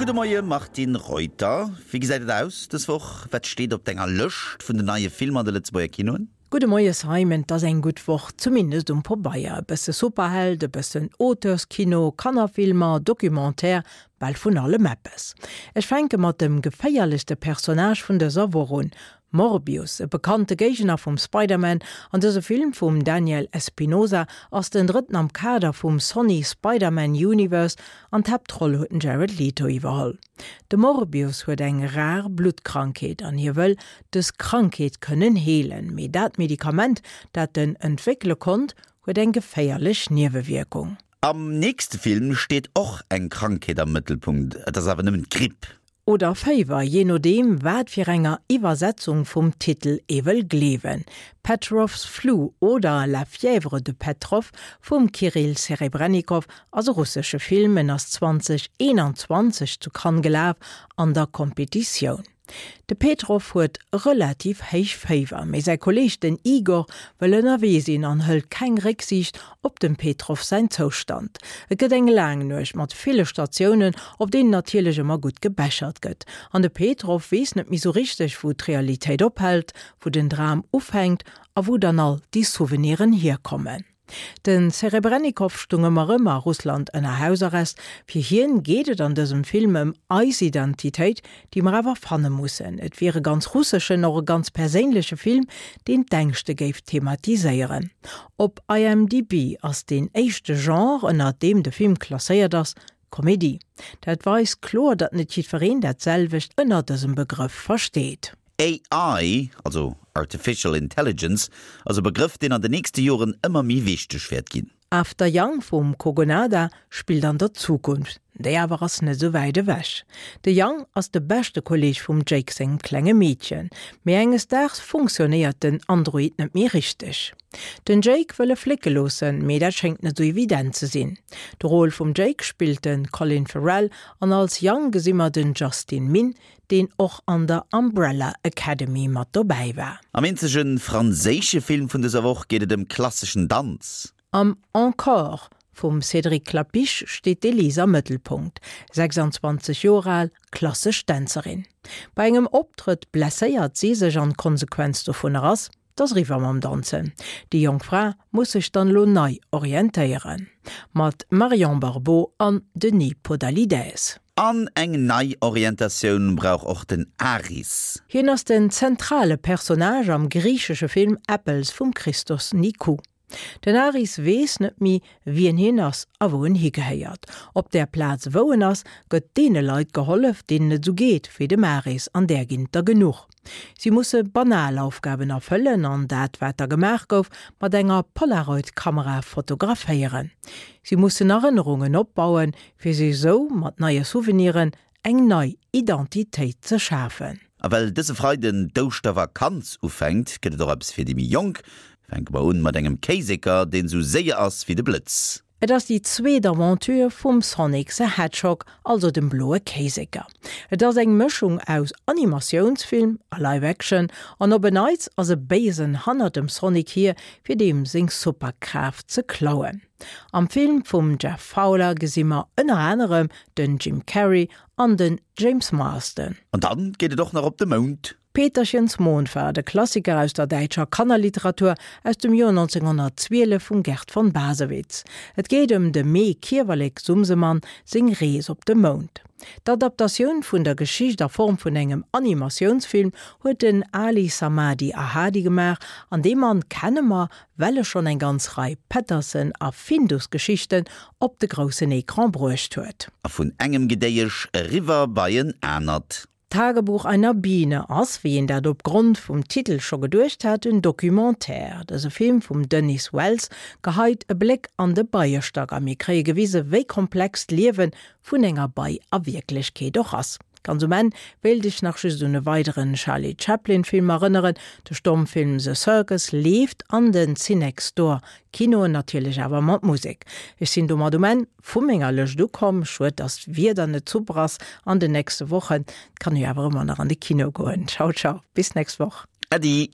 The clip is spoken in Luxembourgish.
Gudde Moie Martine Reuter. Wéi gesäit et aus dës Woch? Wat steet op denger Lëscht vun den neie Filmer an de Lëtzebuerger Kinoen? Gudde Moie Simon, 't ass eng gutt Woch, zumindest um Pobeier. E bësse Superheld, e bëssen Auteurskino, Kannerfilmer, Documentaire, bal vun allem eppes. Ech fänke mat dem geféierlechste Personnage vun dëser Woch un, Morbius, e bekannte Géigner vum Spider-Man an dëse Film vum Daniel Espinosa ass den drëtten am Kader vum Sony Spider-Man Universe an d'Haaptroll huet den Jared Leto iwwerholl. De Morbius huet eng rar Bluttkrankheet an hie wëll dës Krankheet kënnen heelen, mee dat Medikament, dat en entwéckele konnt, huet eng geféierlech Niewewierkung. Am nächste Film steet och eng Krankheet am Mëttelpunkt, et ass awer nëmmen d'Gripp. Oder Féiwer, jee nodeem wat fir enger Iwwersetzung vum Titel ee wëll gleewen. Petrov's Flu oder La fièvre de Petrov vum Kirill Serebrennikov ass e russesche Film. En ass 2021 zu Cannes gelaf an der Competitioun. De Petrov huet relativ héich Féiwer, mee säi Kolleeg den Igor wëll ënnerwee sinn an hëlt keng Récksiicht op dem Petrov säin Zoustand. Et gëtt eng laang Nuecht mat ville Statiounen, op deenen natierlech ëmmer gutt gebechert gëtt. An de Petrov weess net méi sou richteg, wou d'Realitéit ophält, wou den Dram ufänkt a wou dann all déi Souveniren hierkommen. Den Serebrennikov stung ëmmer rëm a Russland ënner Hausarrest. Fir hien geet et an dësem Film ëm eis Identitéit, déi mer awer fanne mussen. Et wier e ganz russeschen, och e ganz perséinleche Film, deen d'Ängschte géif thematiséieren. Op IMDb ass deen éischte Genre, ënner deem de Film klasséiert ass, Komedie. Dat weist kloer, datt net jiddwereen dat selwecht ënner dësem Begrëff versteet. AI, also Artificial Intelligence, ass e Begrëff, deen an de nächste Joren ëmmer méi wichteg wäert ginn. After Yang vum Kogonada spillt an der Zukunft, déi awer ass net esou wäit ewech. De Yang ass de beschte Kolleeg vum Jake sengem klenge Meedchen, mee enges Daags funktionéiert den Android net méi richteg. Den Jake wëll e flécke loossen, mee dat schéngt net esou evident ze sinn. De Rôle vum Jake spillt de Colin Farrell an als Yang gesi mer den Justin Min, deen och an der Umbrella Academy mat dobäi war. Am eenzege franséische Film vun dëser Woch geet et ëm klasseschen Danz. Am Encore vum Cédric Klapisch steet d'Elise am Mëttelpunkt, 26 Joer al, klassesch Dänzerin. Bei engem Optrëtt blesséiert si sech an d'Konsequenz dovunner ass, 't ass eriwwer mam Danzen. Déi jonk Fra muss sech dann elo nei orientéieren. Mat Marion Barbeau an Denis Podalydès. An eng nei Orientatioun brauch och den Aris. Hien ass den zentrale Personnage am griichesche Film Apples vum Christos Nikou. Den Aris weess net méi, wien hien ass a wou en higehéiert. Op där Plaz, wou en ass, gëtt deene Leit gehollef, deenen et esou geet wéi dem Aris, an där ginn et der genuch. Si musse banal Aufgaben erfëllen an dat, wat da gemaach gouf, mat enger Polaroid-Kamera fotograféieren. Si mussen Erënnerungen opbauen, fir sech esou mat neie Souveniren eng nei Identitéit ze schafen. A well dëse Freiden d'Ouschtervakanz ufänkt, gëtt et och eppes fir déi méi Jonk. Fänke mer un mat engem Kéiseker, deen esou séier ass wéi de Blëtz. Et ass déi zweet Aventure vum Sonic the Hedgehog, also dem bloe Kéiseker. Et ass eng Mëschung aus Animatiounsfilm a Live Action an op en Neits ass e Béisen hannert dem Sonic hier, fir deem seng Superkraaft ze klauen. Am Film vum Jeff Fowler gesi mer ënner anerem den Jim Carrey an den James Marsden. An dann geet et och nach op de Mound. Peterchens Mondfahrt, e Klassiker aus der däitscher Kannerliteratur aus dem Joer 1912 vum Gerd von Bassewitz. Et geet ëm dem Mee Kiewerlek Sumsemann seng Rees op de Mound. D'Adaptatioun vun der Geschicht a Form vun engem Animatiounsfilm huet den Ali Samadi Ahadi gemaach an dee Mann kenne mer well e schonn eng ganz Rei Pettersen a Findus-Geschichten op de groussen Ecran bruecht huet. A vun engem Gedéiesch eriwwer bei en anert. Tagebuch einer Biene ass, wéi een dat op Grond vum Titel scho geduecht hat, en Documentaire. Dëse Film vum Denis Wells geheit e Bléck an de Beiestack a mir kréie gewise wéi komplex d'Liewe vun enger Bei a Wierklechkeet och ass. Ganz um Enn wéilt ech nach just un e weideren Charlie Chaplin Film erënneren, De Stommfilm The Circus leeft an den Cinextdoor Kinoen, natierlech awer mat Musek. Ech sinn domat um Enn vu menger Lëscht ukomm. Schued dass d'Wieder net super ass an den nächste Wochen, et kann ee jo awer ëmmer nach an de Kino goen. Ciao ciao, bis nächst Woch. Äddi.